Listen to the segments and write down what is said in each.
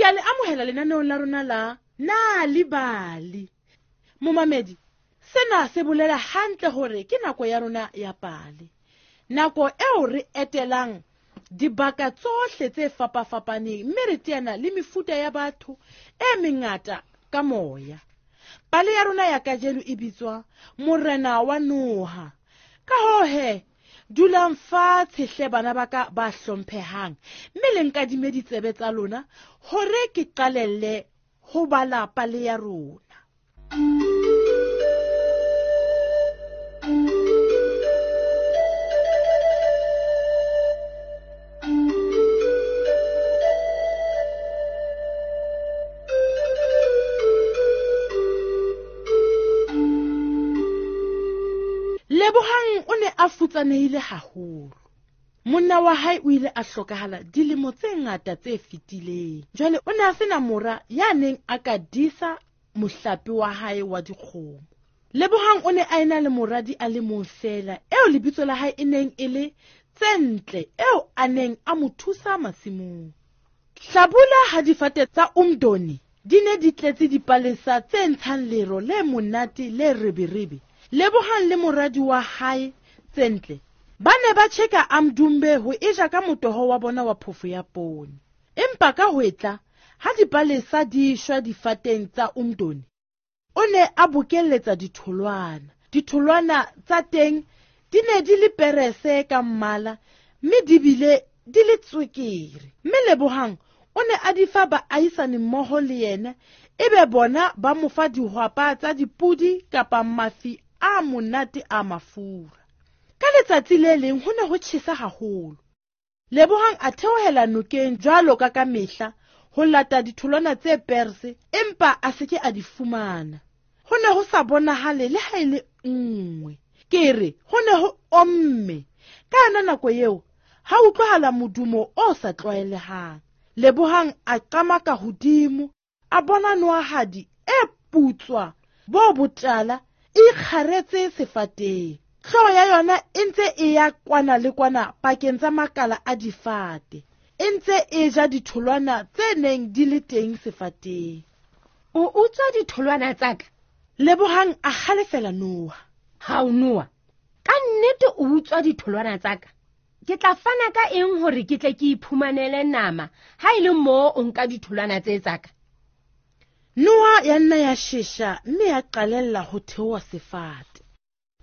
Ke a le amohela lenaneong la rona la Nal'ibali. Momamedi, sena se bolela hantle hore ke nako ya rona ya pale. Nako eo re etelang dibaka tsohle tse fapafapaneng mme re teana le mefuta ya batho e mengata ka moya. Pale ya rona ya kajeno e bitswa Morena wa Noha. Ka hoo he, dulang fatshe hle bana ba ka ba hlomphehang mme le nkadime ditsebe tsa lona hore ke qalelle ho bala pale ya rona. Lebohang o ne a futsanehile haholo. Monna wa hae o ile a hlokahala dilemo tse ngata tse fetileng. Jwale o ne a sena mora ya neng a ka disa mohlape wa hae wa dikgomo. Lebohang o ne a ena le moradi a le mong feela eo lebitso la hae e neng e le Tsentle, eo a neng a mo thusa masimong. Hlabula ha difate tsa Umdoni di ne di tletse dipalesa tse ntshang lero le monate le reberebe. Lebohang le moradi wa hae Tsentle ba ne ba tjheka Amdumbe ho eja ka motoho wa bona wa phofo ya poone. Empa ka hwetla ha dipalesa di shwa difateng tsa Umdoni, o ne a bokelletsa ditholwana. Ditholwana tsa teng di ne di le perese ka mmala mme di bile di le tswekere. Mme Lebohang o ne a di fa baahisane mmoho le yena, ebe bona ba mo fa dihwapa tsa dipodi kapa mafi a monate a mafura. Ka letsatsi le leng ho ne ho tjhesa haholo. Lebohang a theohela nokeng jwalo ka ka mehla ho lata ditholwana tse perse, empa a se ke a di fumana. Ho ne ho sa bonahale le ha e le nngwe. Ke re ho ne ho omme. Ka yona nako eo ha utlwahala modumo o sa tlwaelehang. Lebohang a qamaka hodimo, a bona noahadi e putswa bo botala e ikgaretse sefateng. Hlooho ya yona e ntse e ya kwana le kwana pakeng tsa makala a difate, e ntse e ja ditholwana tse neng di le teng sefateng. O utswa ditholwana tsa ka? Lebohang a halefela noha. Ha o noha, ka nnete o utswa ditholwana tsa ka? Ke tla fana ka eng hore ke tle ke iphumanele nama ha e le moo o nka ditholwana tse tsa ka? Noha ya nna ya shesha mme ya qalella ho theoha sefate.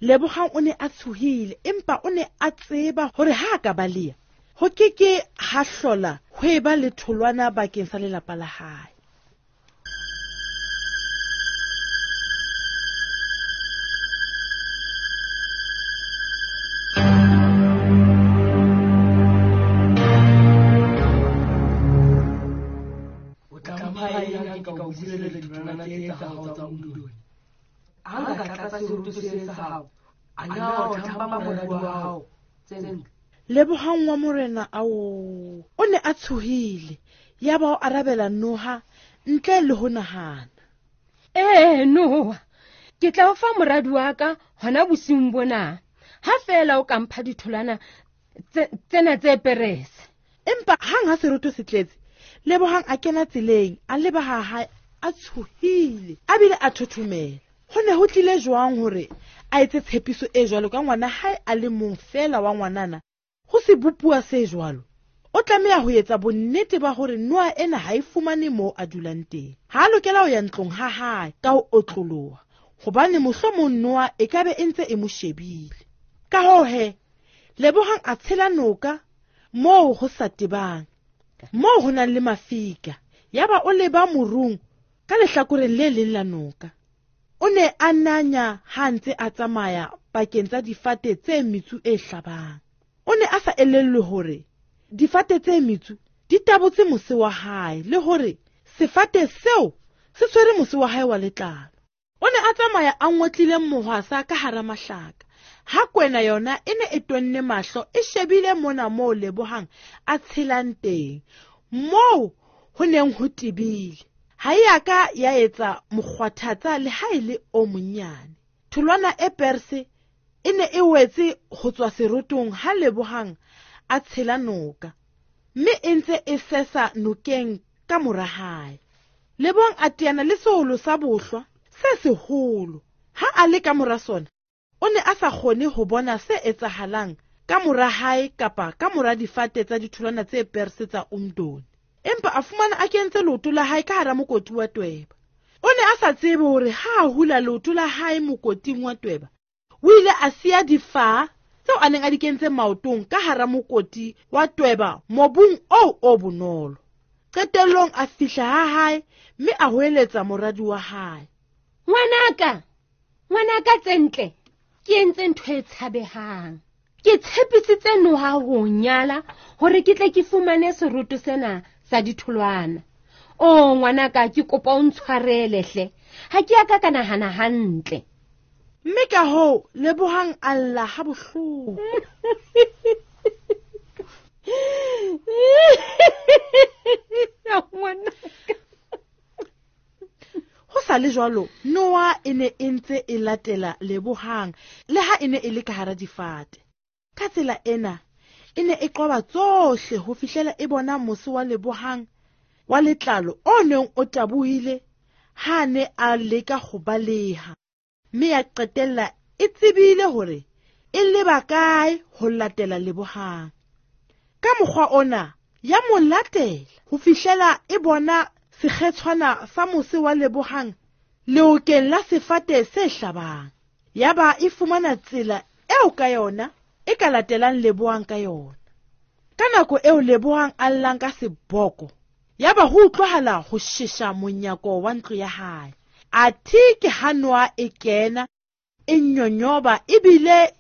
Lebohang o ne a tshohile, empa o ne a tseba hore ha a ka baleha, ho ke ke ha hlola ho eba le tholwana bakeng sa lelapa la hae. O tla mpha eng ha ke ka o buseletsa ditholwana tse tsa hao tsa Umdoni? Ha nka tlatsa seroto se sa hao, a na o tla mpha moradi wa hao Tsentle? Lebohang wa morena ao o ne a tshohile, yaba o arabela noha ntle le ho nahana. Ee, noha, ke tla o fa moradi wa ka hona bosiung bona, ha feela o ka mpha ditholwana tsena tse perese. Empa hang ha seroto se tletse, Lebohang a kena tseleng, a leba ha hae a tshohile, a bile a thothomela. Ho ne ho tlile jwang hore a etse tshepiso e jwalo ka ngwana hae a le mong feela wa ngwanana ho sebopuwa se jwalo? O tlameha ho etsa bonnete ba hore noha ena ha e fumane moo a dulang teng. Ha a lokela ho ya ntlong ha hae ka ho otloloha, hobane mohlomong noha e ka be e ntse e mo shebile. Ka hoo he, Lebohang a tshela noka moo ho sa tebang, moo ho nang le mafika, yaba o leba morung ka lehlakoreng le leng la noka. O ne a nanya ha a ntse a tsamaya pakeng tsa difate tse metsu e hlabang. O ne a sa elellwe hore difate tse metsu di tabotse mose wa hae le hore sefate seo se tshwere mose wa hae wa letlalo. O ne a tsamaya a ngotlile mohwasa ka hara mahlaka, ha kwena yona e ne e tonne mahlo e shebile mona moo Lebohang a tshelang teng, moo ho neng ho tebile. Ha e a ka ya etsa mokgwathatsa le ha e le o monnyane. Tholwana e perse e ne e wetse ho tswa serotong ha Lebohang a tshela noka, mme e ntse e sesa nokeng ka mora hae. Lebohang a teana le seholo sa bohlwa se seholo. Ha a le ka mora sona, o ne a sa kgone ho bona se etsahalang ka mora hae kapa ka mora difate tsa ditholwana tse perse tsa Umdoni. Empa a fumana a kentse leoto la hae ka hara mokoti wa tweba. O ne a sa tsebe hore ha a hula leoto la hae mokoting wa tweba, o ile a siya difaha tseo a neng a di kentse maotong ka hara mokoti wa tweba mobung oo o bonolo. Qetellong a fihla ha hae mme a hoeletsa moradi wa hae. Ngwanaka, ngwanaka Tsentle, ke entse ntho e tshabehang. Ke tshepisitse noha ho nyala hore ke tle ke fumane seroto sena sa ditholwana. O ngwanaka, ke kopa o ntshwarele hle. Ha ke a ka ka nahana hantle. Mme ka hoo Lebohang a lla ha bohloko. Ho sa le jwalo, Noa e ne e ntse e latela Lebohang le ha e ne e le ka hara difate. Ka tsela ena, e ne e qoba tsohle ho fihlela e bona mose wa Lebohang wa letlalo o neng o tabohile ha a ne a leka ho baleha. Mme ya qetella e tsebile hore e leba kae ho latela Lebohang. Ka mokgwa ona, ya mo latela ho fihlela e bona sekgetshwana sa mose wa Lebohang leokeng la sefate se hlabang. Yaba e fumana tsela eo ka yona e ka latelang Lebohang ka yona. Ka nako eo Lebohang a llang ka seboko, yaba ho utlwahala ho shesha monyako wa ntlo ya hae. Athe ke ha noha e kena, e nyonyoba ebile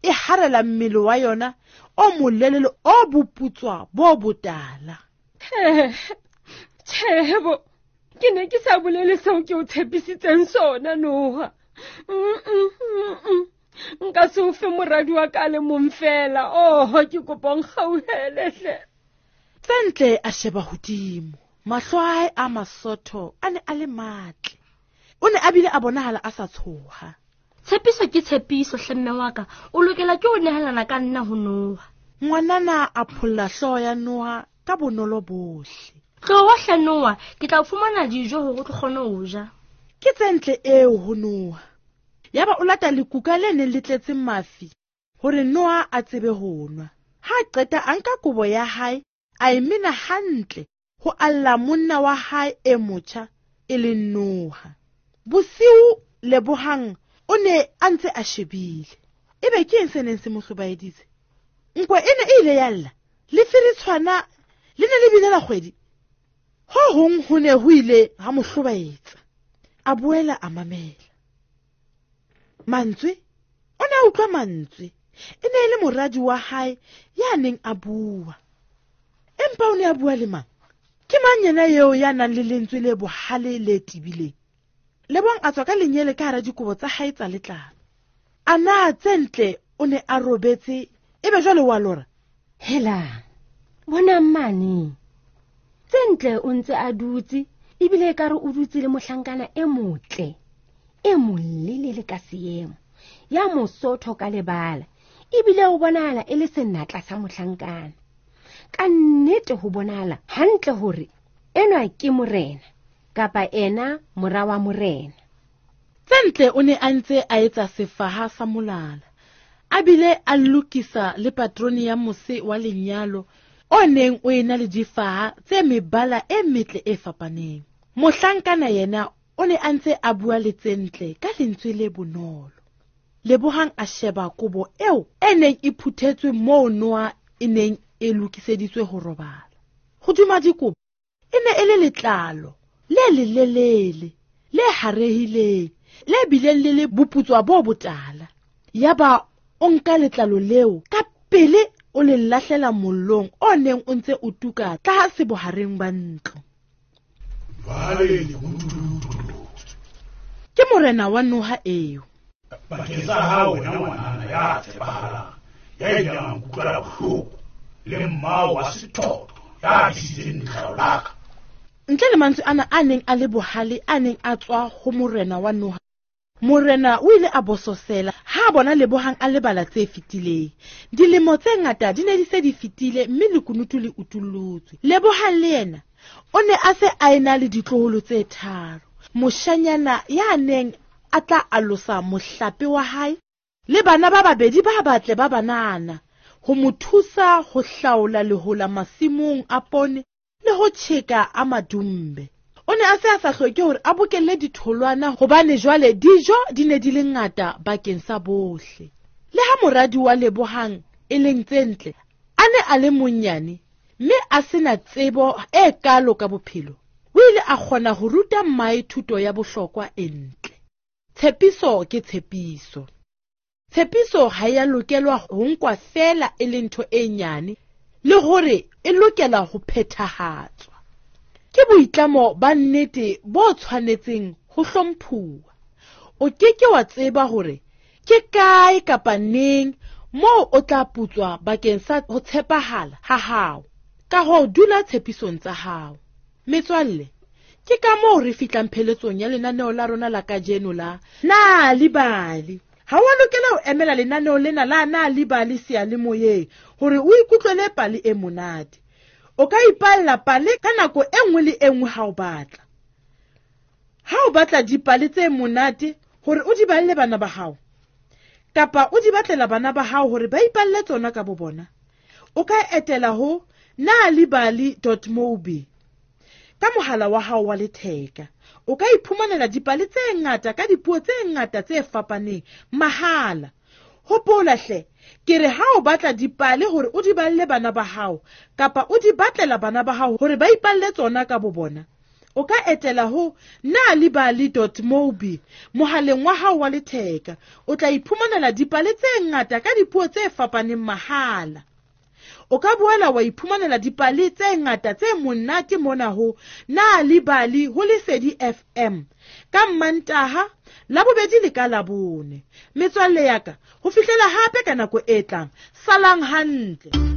e harela mmele wa yona o molelele o boputswa bo botala. Tjhebo, ke ne ke sa bolele seo ke o tshepisitseng sona, Noha. Nka se o fe moradi wa ka le mong fela. Oh, ke kopa o nkgauhele hle. Tsentle a sheba hodimo. Mahlo a hae a masotho a ne a le matle. O ne a bile a bonahala a sa tshoha. Tshepiso ke tshepiso, hle mme wa ka. O lokela ke ho nehelana ka nna ho Noha. Ngwanana a pholla hlooho ya Noha ka bonolo bohle. Tloha hle Noha, ke tla o fumana dijo hore o tlo kgone ho ja. Ke Tsentle eo ho Noha. Yaba o lata lekuka le neng le tletse mafi hore Noha a tsebe ho nwa. Ha a qeta a nka kobo ya hae, a e mena hantle ho alla monna wa hae e motjha e leng Noha. Bosiu Lebohang o ne a ntse a shebile. Ebe ke eng se neng se mo hlobaeditse? Nkwe e ne e ile ya lla, le feritshwana le ne le bile la kgwedi. Ho hong ho ne ho ile ha mo hlobaetsa. A boela a mamela. Mantswe, o ne a utlwa mantswe. E ne e le moradi wa hae ya neng a bua. Empa o ne a bua le mang? Ke mang yena eo ya nang le lentswe le bohale le tebileng? Lebohang a tswa ka lenyele ka hara dikobo tsa hae tsa letlalo. A na Tsentle o ne a robetse, ebe jwale wa lora? Hela, bonang mane. Tsentle o ntse a dutse, ebile ekare o dutse le mohlankana e motle, e molelele ka seemo, ya mosotho ka lebala, ebile o bonahala e le senatla sa mohlankana. Ka nnete ho bonahala hantle hore enwa ke morena, kapa ena mora wa morena. Tsentle o ne a ntse a etsa sefaha sa molala, a bile a lokisa le patrone ya mose wa lenyalo o neng o ena le difaha tse mebala e metle e fapaneng. Mohlankana yena o ne a ntse a bua le Tsentle ka lentswe le bonolo. Lebohang a sheba kobo eo e neng e phuthetswe moo noha e neng e lokiseditswe ho robala. Hodima dikobo e ne e le letlalo le lelelele, le harehileng, le bileng le le boputswa bo botala. Yaba o nka letlalo leo ka pele o le lahlela mollong o neng o ntse o tuka tlase bohareng ba ntlo. Ke morena wa noha eo. Bakeng sa hao wena ngwanana ya tshepahalang, ya ileng a nkutlwela bohloko, le mmao wa sethotho ya tlisitseng letlalo la ka. Ntle le mantswe ana a neng a le bohale a neng a tswa ho morena wa noha, morena o ile a bososela ha a bona Lebohang a lebala tse fetileng. Dilemo tse ngata di ne di se di fetile mme lekunutu le utullotse. Lebohang le yena O ne a se a ena le ditloholo tse tharo. Moshanyana ya neng a tla alosa mohlape wa hae le bana ba babedi ba batle ba banana ho mo thusa ho hlaola lehola masimong a poone le ho tjheka a madumbe. O ne a se a sa hloke hore a bokelle ditholwana hobane jwale dijo di ne di le ngata bakeng sa bohle. Le ha moradi wa Lebohang e leng tse ntle a ne a le monnyane mme a sena tsebo e kalo ka bophelo, o ile a kgona ho ruta mmae thuto ya bohlokwa e ntle. Tshepiso ke tshepiso. Tshepiso ha ya lokelwa ho nkwa feela e le ntho e nyane le hore e lokela ho phethahatswa. Ke boitlamo ba nnete bo tshwanetseng ho hlomphuwa. O ke ke wa tseba hore ke kae kapa neng moo o tla putswa bakeng sa ho tshepahala ha hao. Ka hoo dula tshepisong tsa hao. Metswalle, ke ka moo re fihlang pheletsong ya lenaneo la rona la kajeno la Nal'ibali. Ha wa lokela ho emela lenaneo lena la Nal'ibali seyalemoyeng hore o ikutlwele pale e monate. O ka ipalla pale ka nako e nngwe le e nngwe ha o batla. Ha o batla dipale tse monate hore o di balle bana ba hao, kapa o di batlela bana ba hao hore ba ipalle tsona ka bo bona, o ka etela ho nalibali.mobi ka mohala wa hao wa letheka. O ka iphumanela dipale tse ngata ka dipuo tse ngata tse fapaneng mahala. Hopola hle, ke re ha o batla dipale hore o di balle bana ba hao kapa o di batlela bana ba hao hore ba ipalle tsona ka bo bona, o ka etela ho nalibali.mobi mohaleng wa hao wa letheka. O tla iphumanela dipale tse ngata ka dipuo tse fapaneng mahala. O ka boela wa iphumanela dipale tse ngata tse monate mona ho Nal'ibali ho Lesedi FM ka Mmantaha, Labobedi le ka Labone. Metswalle ya ka, ho fihlela hape ka nako e tlang, salang hantle.